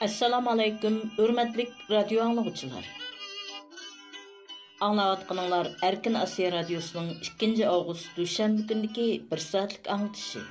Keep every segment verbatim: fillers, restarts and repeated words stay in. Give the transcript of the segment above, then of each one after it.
ئەسسالامۇ ئەلەيكۇم، ھۆرمەتلىك رادىيو ئاڭلىغۇچىلار. ئاڭلاۋاتقىنىڭلار ئەركىن ئاسىيا رادىيوسىنىڭ ئىككىنچى ئاۋغۇست دۈشەنبە كۈنىدىكى بىر سائەتلىك ئاڭلىتىشى.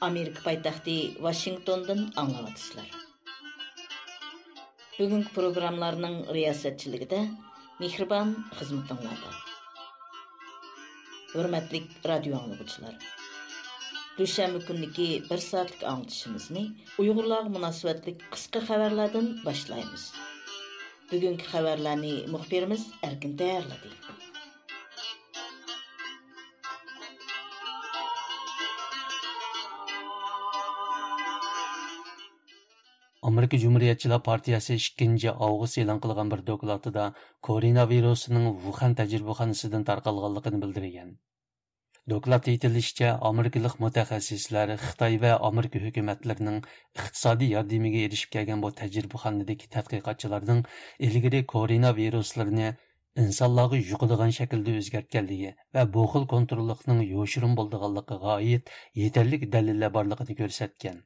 ئامېرىكا پايتەختى ۋاشىنگتوندىن ئاڭلاۋاتىسىلەر. بۈگۈنكى پروگراممىلارنىڭ رىياسەتچىلىكىدە مېھرىبان خىزمىتىڭلاردا. ھۆرمەتلىك رادىيو ئاڭلىغۇچىلار، دۈشەنبە كۈنىدىكى بىر سائەتلىك ئاڭلىتىشىمىزنى ئۇيغۇرلارغا مۇناسىۋەتلىك قىسقا خەۋەرلەردىن باشلايمىز. بۈگۈنكى خەۋەرلەرنى مۇخبىرىمىز ئەركىن تەييارلىدى. ئامېرىكا جۇمھۇرىيەتچىلەر پارتىيەسى ئىككىنچى ئاۋغۇست ئېلان قىلغان بىر دوكلاتىدا كوروناۋىرۇسنىڭ ۋۇخەن تەجرىبىخانىسىدىن تارقالغانلىقىنى بىلدۈرگەن. دوكلاتتا ئېيتىلىشىچە، ئامېرىكىلىق مۇتەخەسسىسلەر خىتاي ۋە ئامېرىكا ھۆكۈمەتلىرىنىڭ ئىقتىسادىي ياردىمىگە ئېرىشىپ كەلگەن بۇ تەجرىبىخانىدىكى تەتقىقاتچىلارنىڭ ئىلگىرى كوروناۋىرۇسلىرىنى ئىنسانلارغا يۇقىدىغان شەكىلدە ئۆزگەرتكەنلىكى ۋە بۇ خىل كونتروللۇقنىڭ يوشۇرۇن بولىدىغانلىقىغا ئائىت يېتەرلىك دەلىللەر بارلىقىنى كۆرسەتكەن.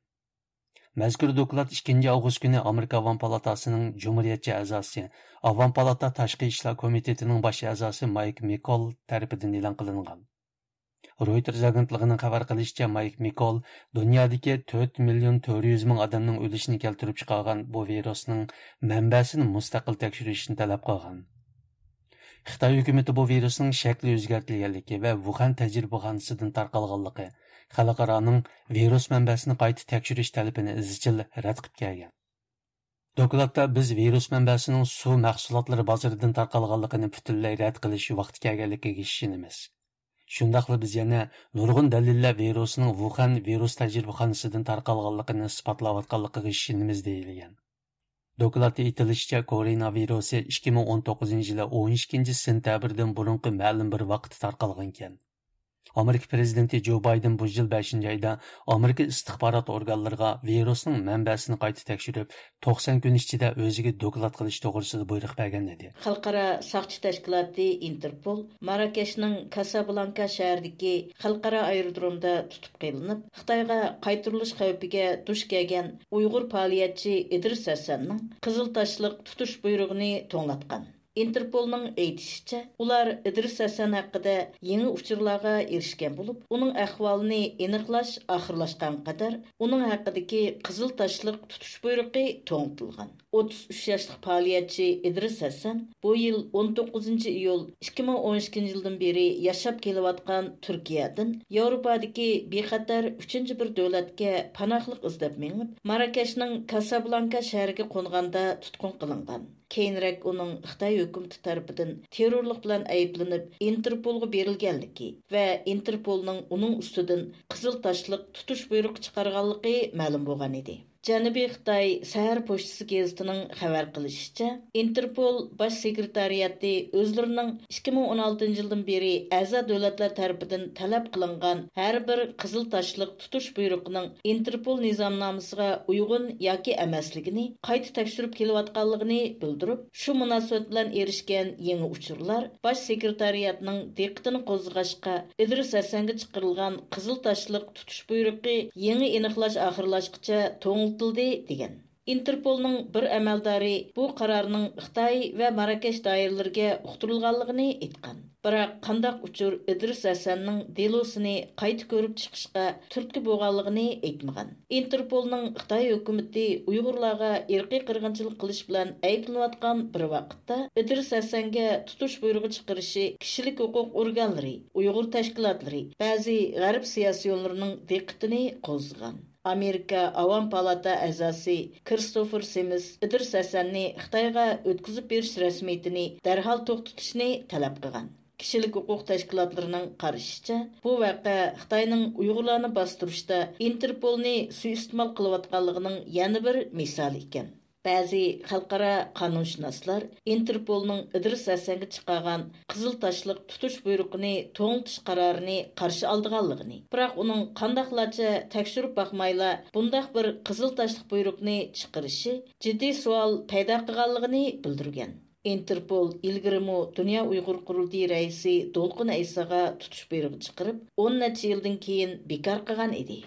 مەزكۇر دوكلات ئىككىنچى ئاۋغۇست كۈنى ئامېرىكا ئاۋام پالاتاسىنىڭ جۇمھۇرىيەتچى ئەزاسى، ئاۋام پالاتا تاشقى ئىشلار كومىتېتىنىڭ باش ئەزاسى مايك مىكول تەرىپىدىن ئېلان قىلىنغان. رويتېرز ئاگېنتلىقىنىڭ خەۋەر قىلىشىچە، مايك مىكول دۇنيادىكى تۆت مىليون تۆت يۈز مىڭ ئادەمنىڭ ئۆلۈشىنى كەلتۈرۈپ چىقارغان بۇ ۋىرۇسنىڭ مەنبەسىنى مۇستەقىل تەكشۈرۈشنى تەلەپ قىلغان. خىتاي ھۆكۈمىتى بۇ ۋىرۇسنىڭ شەكلى ئۆزگەرتىلگەنلىكى ۋە ۋۇخەن تەجرىبىخانىسىدىن تارقالغانلىقى، خەلقئارانىڭ ۋىرۇس مەنبەسىنى قايتا تەكشۈرۈش تەلىپىنى ئىزچىل رەت قىلىپ كەلگەن. دوكلاتتا بىز ۋىرۇس مەنبەسىنىڭ سۇ مەھسۇلاتلىرى بازىرىدىن تارقالغانلىقىنى پۈتۈنلەي رەت قىلىش ۋاقتى كەلگەنلىكىگە ئىشىنىمىز. شۇنداقلا بىز يەنە نۇرغۇن دەلىللەر ۋىرۇسنىڭ ۋۇخەن ۋىرۇس تەجرىبىخانىسىدىن تارقالغانلىقىنى ئىسپاتلاۋاتقانلىقىغا ئىشىنىمىز، دېيىلگەن. دوكلاتتا ئېيتىلىشىچە، كوروناۋىرۇسى ئىككى مىڭ ئون توققۇزىنچى يىلى ئون ئىككىنچى سېنتەبىردىن بۇرۇنقى مەلۇم بىر ۋاقىتتا تارقالغانىكەن. ئامېرىكا پىرېزىدېنتى جو بايدېن بۇ يىل بەشىنچى ئايدا ئامېرىكا ئىستىخبارات ئورگانلىرىغا ۋىرۇسنىڭ مەنبەسىنى قايتا تەكشۈرۈپ، توقسان كۈن ئىچىدە ئۆزىگە دوكلات قىلىش توغرىسىدا بۇيرۇق بەرگەن ئىدى. خەلقئارا ساقچى تەشكىلاتى ئىنتېرپول ماراكەشنىڭ كاسابلانكا شەھىرىدىكى خەلقئارا ئايرودرومدا تۇتۇپ قېلىنىپ، خىتايغا قايتۇرۇلۇش خەۋپىگە دۇچ كەلگەن ئۇيغۇر پائالىيەتچى ئىدرىس ھەسەننىڭ قىزىل تاشلىق تۇتۇش بۇيرۇغىنى توڭلاتقان. ئىنتېرپولنىڭ ئېيتىشىچە، ئۇلار ئىدرىس ھەسەن ھەققىدە يېڭى ئۇچۇرلارغا ئېرىشكەن بولۇپ، ئۇنىڭ ئەھۋالىنى ئېنىقلاش ئاخىرلاشقانغا قەدەر ئۇنىڭ ھەققىدىكى قىزىل تاشلىق تۇتۇش بۇيرۇقى توڭلىتىلغان. ئوتتۇز ئۈچ ياشلىق پائالىيەتچى ئىدرىس ھەسەن بۇ يىل ئون توققۇزىنچى ئىيۇل ئىككى مىڭ ئون ئىككىنچى يىلدىن بېرى ياشاپ كېلىۋاتقان تۈركىيەدىن ياۋروپادىكى بىخەتەر ئۈچىنچى بىر دۆلەتكە پاناھلىق ئىزدەپ مېڭىپ، ماراكەشنىڭ كاسابلانكا شەھىرىگە قونغاندا تۇتقۇن قىلىنغان. كېيىنرەك ئۇنىڭ خىتاي ھۆكۈمىتى تەرىپىدىن تېررورلۇق بىلەن ئەيىبلىنىپ، ئىنتېرپولغا بېرىلگەنلىكى ۋە ئىنتېرپولنىڭ ئۇنىڭ ئۈستىدىن قىزىل تاشلىق تۇتۇش بۇيرۇقى چىقارغانلىقى مەلۇم بولغان ئىدى. جەنۇبىي خىتاي سەھەر پوچتىسى گېزىتىنىڭ خەۋەر قىلىشىچە، ئىنتېرپول باش سېكرېتارىياتى ئۆزلىرىنىڭ ئىككى مىڭ ئون ئالتىنچى يىلدىن بېرى ئەزا دۆلەتلەر تەرىپىدىن تەلەپ قىلىنغان ھەر بىر قىزىل تاشلىق تۇتۇش بۇيرۇقىنىڭ ئىنتېرپول نىزامنامىسىغا ئۇيغۇن ياكى ئەمەسلىكىنى قايتا تەكشۈرۈپ كېلىۋاتقانلىقىنى بىلدۈرۈپ، شۇ مۇناسىۋەت بىلەن ئېرىشكەن يېڭى ئۇچۇرلار باش سېكرېتارىياتنىڭ دىققىتىنى قوزغىغاچقا، ئىدرىس ھەسەنگە چىقىرىلغان قىزىل تاشلىق تۇتۇش بۇيرۇقى يېڭى ئېنىقلاش ئاخىرلاشقىچە توڭلىتىلدى، دېگەن. ئىنتېرپولنىڭ بىر ئەمەلدارى بۇ قارارنىڭ خىتاي ۋە ماراكەش دائىرىلىرىگە ئۇقتۇرۇلغانلىقىنى ئېيتقان. بىراق قانداق ئۇچۇر ئىدرىس ھەسەننىڭ دېلوسىنى قايتا كۆرۈپ چىقىشقا تۈرتكە بولغانلىقىنى ئېيتمىغان. ئىنتېرپولنىڭ خىتاي ھۆكۈمىتى ئۇيغۇرلارغا ئىرقىي قىرغىنچىلىق قىلىش بىلەن ئەيىبلىنىۋاتقان بىر ۋاقىتتا، ئىدرىس ھەسەنگە تۇتۇش بۇيرۇغى چىقىرىشى كىشىلىك ھوقۇق ئورگانلىرى، ئۇيغۇر تەشكىلاتلىرى، بەزى غەرب سىياسىيونلىرىنىڭ دىققىتىنى قوزغىغان. ئامېرىكا ئاۋام پالاتا ئەزاسى كىرىستوفېر سىمىس ئىدرىس ھەسەننى خىتايغا ئۆتكۈزۈپ بېرىش رەسمىيىتىنى دەرھال توختىتىشنى تەلەپ قىلغان. كىشىلىك ھوقۇق تەشكىلاتلىرىنىڭ قارىشىچە، بۇ ۋەقە خىتاينىڭ ئۇيغۇرلارنى باستۇرۇشتا ئىنتېرپولنى سۇيىئىستېمال قىلىۋاتقانلىقىنىڭ يەنە بىر مىسالى ئىكەن. بەزى خەلقئارا قانۇنشۇناسلار ئىنتېرپولنىڭ ئىدرىس ھەسەنگە چىقارغان قىزىل تاشلىق تۇتۇش بۇيرۇقىنى توڭلىتىش قارارىنى قارشى ئالىدىغانلىقىنى، بىراق ئۇنىڭ قانداقلارچە تەكشۈرۈپ باقمايلا بۇنداق بىر قىزىل تاشلىق بۇيرۇقنى چىقىرىشى جىددىي سوئال پەيدا قىلغانلىقىنى بىلدۈرگەن. ئىنتېرپول ئىلگىرىمۇ دۇنيا ئۇيغۇر قۇرۇلتىيى رەئىسى دولقۇن ئەيساغا تۇتۇش بۇيرۇقى چىقىرىپ، ئون نەچچە يىلدىن كېيىن بىكار قىلغان ئىدى.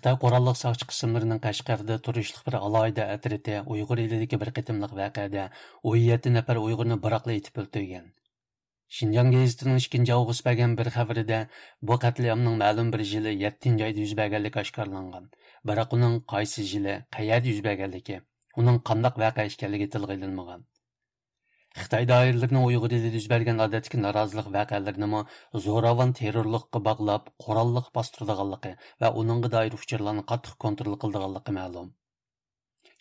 خىتاي قوراللىق ساقچى قىسىملىرىنىڭ قەشقەردە تۇرۇشلۇق بىر ئالاھىدە ئەترىتى ئۇيغۇر ئېلىدىكى بىر قېتىملىق ۋەقەدە ئون يەتتە نەپەر ئۇيغۇرنى بىراقلا ئېتىپ ئۆلتۈرگەن. شىنجاڭ گېزىتىنىڭ ئىككىنچى ئاۋغۇست بەرگەن بىر خەۋىرىدە بۇ قەتلىئامنىڭ مەلۇم بىر يىلى يەتتىنچى ئايدا يۈز بەرگەنلىكى ئاشكارىلانغان. بىراق ئۇنىڭ قايسى يىلى، قەيەردە يۈز بەرگەنلىكى، ئۇنىڭ قانداق ۋەقە ئىكەنلىكى تىلغا ئېلىنمىغان. خىتاي دائىرىلىرىنىڭ ئۇيغۇر ئېلىدە يۈز بەرگەن ئادەتتىكى نارازىلىق ۋەقەلىرىنىمۇ زوراۋان تېررورلۇققا باغلاپ، قوراللىق باستۇرىدىغانلىقى ۋە ئۇنىڭغا دائىر ئۇچۇرلارنى قاتتىق كونترول قىلىدىغانلىقى مەلۇم.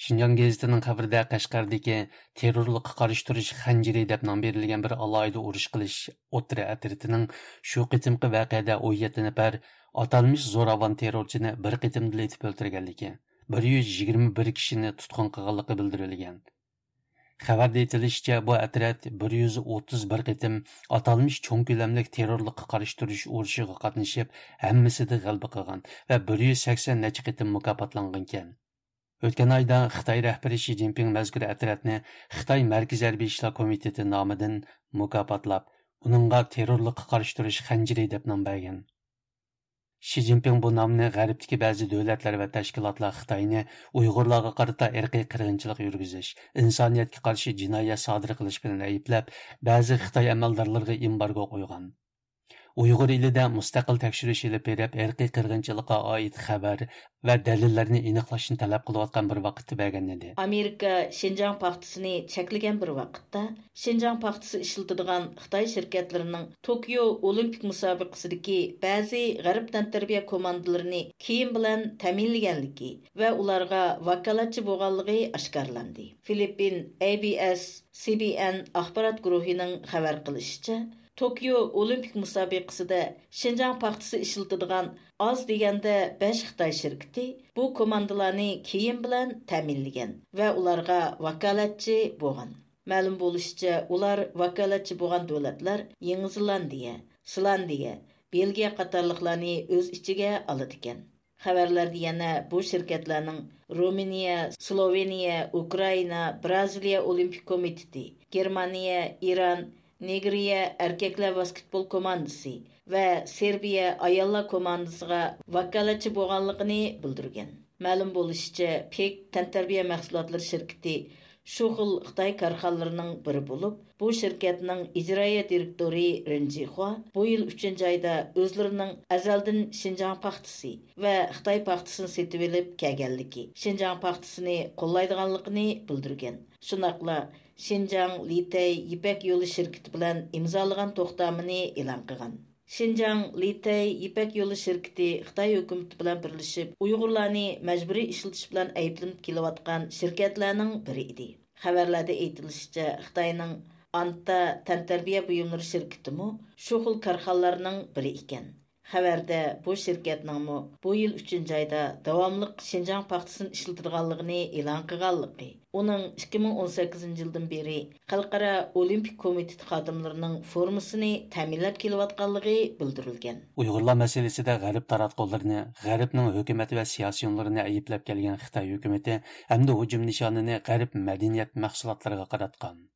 شىنجاڭ گېزىتىنىڭ خەۋىرىدە، قەشقەردىكى تېررورلۇققا قارشى تۇرۇش خەنجىرى دەپ نام بېرىلگەن بىر ئالاھىدە ئۇرۇش قىلىش ئوتتۇرا ئەترىتىنىڭ شۇ قېتىمقى ۋەقەدە ئون يەتتە نەپەر ئاتالمىش زوراۋان تېررورچىنى بىر قېتىمدىلا ئېتىپ ئۆلتۈرگەنلىكى، بىر يۈز يىگىرمە بىر كىشىنى تۇتقۇن قىلغانلىقى بىلدۈرۈلگەن. خەۋەردە ئېيتىلىشىچە، بۇ ئەترەت بىر يۈز ئوتتۇز بىر قېتىم ئاتالمىش چوڭ كۆلەملىك تېررورلۇققا قارشى تۇرۇش ئۇرۇشىغا قاتنىشىپ، ھەممىسىدە غەلىبە قىلغان ۋە بىر يۈز سەكسەن نەچچە قېتىم مۇكاپاتلانغانىكەن. ئۆتكەن ئايدا خىتاي رەھبىرى شى جىنپىڭ مەزكۇر ئەترەتنى خىتاي مەركىزىي ھەربىي ئىشلار كومىتېتى نامىدىن مۇكاپاتلاپ، ئۇنىڭغا تېررورلۇققا قارشى تۇرۇش خەنجىرى دەپ نام بەرگەن. شى جىنپىڭ بۇ نامنى غەربتىكى بەزى دۆلەتلەر ۋە تەشكىلاتلار خىتاينى ئۇيغۇرلارغا قارىتا ئىرقىي قىرغىنچىلىق يۈرگۈزۈش، ئىنسانىيەتكە قارشى جىنايەت سادىر قىلىش بىلەن ئەيىبلەپ، بەزى خىتاي ئەمەلدارلىرىغا ئېمبارگو قويغان. ئۇيغۇر ئېلىدە مۇستەقىل تەكشۈرۈش ئېلىپ بېرىپ، ئىرقىي قىرغىنچىلىققا ئائىت خەۋەر ۋە دەلىللەرنى ئېنىقلاشنى تەلەپ قىلىۋاتقان بىر ۋاقىتتا بەرگەن ئىدى. ئامېرىكا شىنجاڭ پاختىسىنى چەكلىگەن بىر ۋاقىتتا، شىنجاڭ پاختىسى ئىشلىتىدىغان خىتاي شىركەتلىرىنىڭ توكيو ئولىمپىك مۇسابىقىسىدىكى بەزى غەرب تەنتەربىيە كوماندىلىرىنى كىيىم بىلەن تەمىنلىگەنلىكى ۋە ئۇلارغا ۋاكالەتچى بولغانلىقى ئاشكارىلاندى. فىلىپپىن ئەي بى ئەس سى بى ئېن ئاخبارات گۇرۇھىنىڭ خەۋەر قىلىشىچە، توكيو ئولىمپىك مۇسابىقىسىدە شىنجاڭ پاختىسى ئىشلىتىدىغان ئاز دېگەندە بەش خىتاي شىركىتى بۇ كوماندىلارنى كىيىم بىلەن تەمىنلىگەن ۋە ئۇلارغا ۋاكالەتچى بولغان. مەلۇم بولۇشىچە، ئۇلار ۋاكالەتچى بولغان دۆلەتلەر يېڭى زېلاندىيە، ئىسلاندىيە، بېلگىيە قاتارلىقلارنى ئۆز ئىچىگە ئالىدىكەن. خەۋەرلەردە يەنە بۇ شىركەتلەرنىڭ رومىنىيە، سلوۋېنىيە، ئۇكرائىنا، بىرازىلىيە ئولىمپىك كومىتېتى، گېرمانىيە، ئىران، نېگرىيە ئەركەكلەر ۋاسكېتبول كوماندىسى ۋە سېربىيە ئاياللار كوماندىسىغا ۋاكالەتچى بولغانلىقىنى بىلدۈرگەن. مەلۇم بولۇشىچە، پېك تەنتەربىيە مەھسۇلاتلىرى شىركىتى شۇ خىل خىتاي كارخانىلىرىنىڭ بىرى بولۇپ، بۇ شىركەتنىڭ ئىجرائىيە دىرېكتورى رېن جىخۇا بۇ يىل ئۈچىنچى ئايدا ئۆزلىرىنىڭ ئەزەلدىن شىنجاڭ پاختىسى ۋە خىتاي پاختىسىنى سېتىۋېلىپ كەلگەنلىكى، شىنجاڭ پاختىسىنى قوللايدىغانلىقىنى بىلدۈرگەن. شۇنداقلا شىنجاڭ لىتەي يىپەك يولى شىركىتى بىلەن ئىمزالىغان توختامىنى ئېلان قىلغان. شىنجاڭ لىتەي يىپەك يولى شىركىتى خىتاي ھۆكۈمىتى بىلەن بىرلىشىپ ئۇيغۇرلارنى مەجبۇرىي ئىشلىتىش بىلەن ئەيىبلىنىپ كېلىۋاتقان شىركەتلەرنىڭ بىرى ئىدى. خەۋەرلەردە ئېيتىلىشىچە، خىتاينىڭ ئانتا تەنتەربىيە بۇيۇملىرى شىركىتىمۇ شۇ خىل كارخانىلارنىڭ بىرى ئىكەن. خەۋەردە بۇ شىركەتنىڭمۇ بۇ يىل ئۈچىنچى ئايدا داۋاملىق شىنجاڭ پاختىسىنى ئىشلىتىدىغانلىقىنى ئېلان قىلغانلىقى، ئۇنىڭ ئىككى مىڭ ئون سەككىزىنچى يىلدىن بېرى خەلقئارا ئولىمپىك كومىتېتى خادىملىرىنىڭ فورمىسىنى تەمىنلەپ كېلىۋاتقانلىقى بىلدۈرۈلگەن. ئۇيغۇرلار مەسىلىسىدە غەرب تاراتقۇلىرىنى، غەربنىڭ ھۆكۈمەت ۋە سىياسىيونلىرىنى ئەيىبلەپ كەلگەن خىتاي ھۆكۈمىتى ئەمدى ھۇجۇم نىشانىنى غەرب مەدەنىيەت مەھسۇلاتلىرىغا قاراتقان.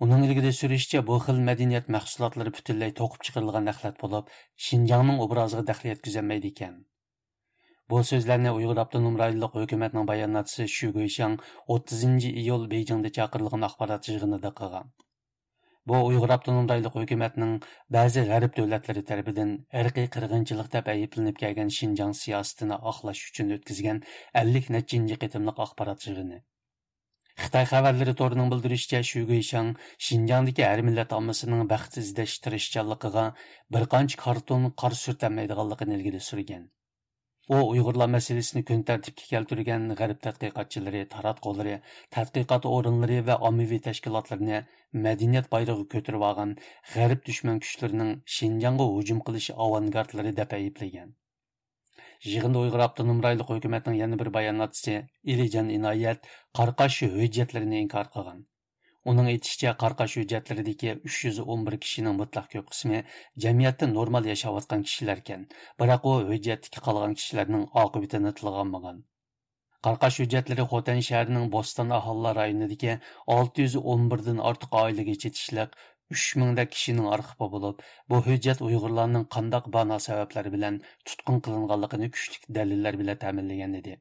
ئۇنىڭ ئىلگىرى سۈرۈشىچە، بۇ خىل مەدەنىيەت مەھسۇلاتلىرى پۈتۈنلەي توقۇپ چىقىرىلغان ئەخلەت بولۇپ، شىنجاڭنىڭ ئوبرازىغا دەخلى يەتكۈزەلمەيدىكەن. بۇ سۆزلەرنى ئۇيغۇر ئاپتونوم رايونلۇق ھۆكۈمەتنىڭ باياناتچىسى شۈ گۇيشاڭ ئوتتۇزىنچى ئىيۇل بېيجىڭدا چاقىرىلغان ئاخبارات يىغىنىدا قىلغان. بۇ ئۇيغۇر ئاپتونوم رايونلۇق ھۆكۈمەتنىڭ بەزى غەرب دۆلەتلىرى تەرىپىدىن ئىرقىي قىرغىنچىلىق دەپ ئەيىبلىنىپ كەلگەن شىنجاڭ سىياسىتىنى ئاقلاش ئۈچۈن ئۆتكۈزگەن ئەللىك نەچچىنچى قېتىملىق ئاخبارات يىغىنى. خىتاي خەۋەرلىرى تورىنىڭ بىلدۈرۈشىچە، شۈ گۇيشاڭ شىنجاڭدىكى ھەر مىللەت ئاممىسىنىڭ بەخت ئىزدەش تىرىشچانلىقىغا بىر قانچە كارتون قار سۈرتەلمەيدىغانلىقىنى ئىلگىرى سۈرگەن. ئۇ ئۇيغۇرلار مەسىلىسىنى كۈن تەرتىپكە كەلتۈرگەن غەرب تەتقىقاتچىلىرى، تاراتقۇلىرى، تەتقىقات ئورۇنلىرى ۋە ئاممىۋى تەشكىلاتلىرىنى مەدەنىيەت بايرىقى كۆتۈرۈۋالغان غەرب دۈشمەن كۈچلىرىنىڭ شىنجاڭغا ھۇجۇم قىلىش ئاۋانگارتلىرى دەپ ئەيىبلىگەن. يىغىندا ئۇيغۇر ئاپتونوم رايونلۇق ھۆكۈمەتنىڭ يەنە بىر باياناتچىسى ئېلىجان ئىنايەت قاراقاش ھۆججەتلىرىنى ئىنكار قىلغان. ئۇنىڭ ئېيتىشىچە، قاراقاش ھۆججەتلىرىدىكى ئۈچ يۈز ئون بىر كىشىنىڭ مۇتلەق كۆپ قىسمى جەمئىيەتتە نورمال ياشاۋاتقان كىشىلەركەن، بىراق ئۇ ھۆججەتتىكى قالغان كىشىلەرنىڭ ئاقىۋىتىنى تىلغا ئالمىغان. قاراقاش ھۆججەتلىرى خوتەن شەھىرىنىڭ بوستان ئاھالىلەر رايونىدىكى ئالتە يۈز ئون بىردىن ئارتۇق ئائىلىگە چېتىشلىق ئۈچ مىڭدەك كىشىنىڭ ئارخىپى بولۇپ، بۇ ھۆججەت ئۇيغۇرلارنىڭ قانداق بانا سەۋەبلەر بىلەن تۇتقۇن قىلىنغانلىقىنى كۈچلۈك دەلىللەر بىلەن تەمىنلىگەن ئىدى.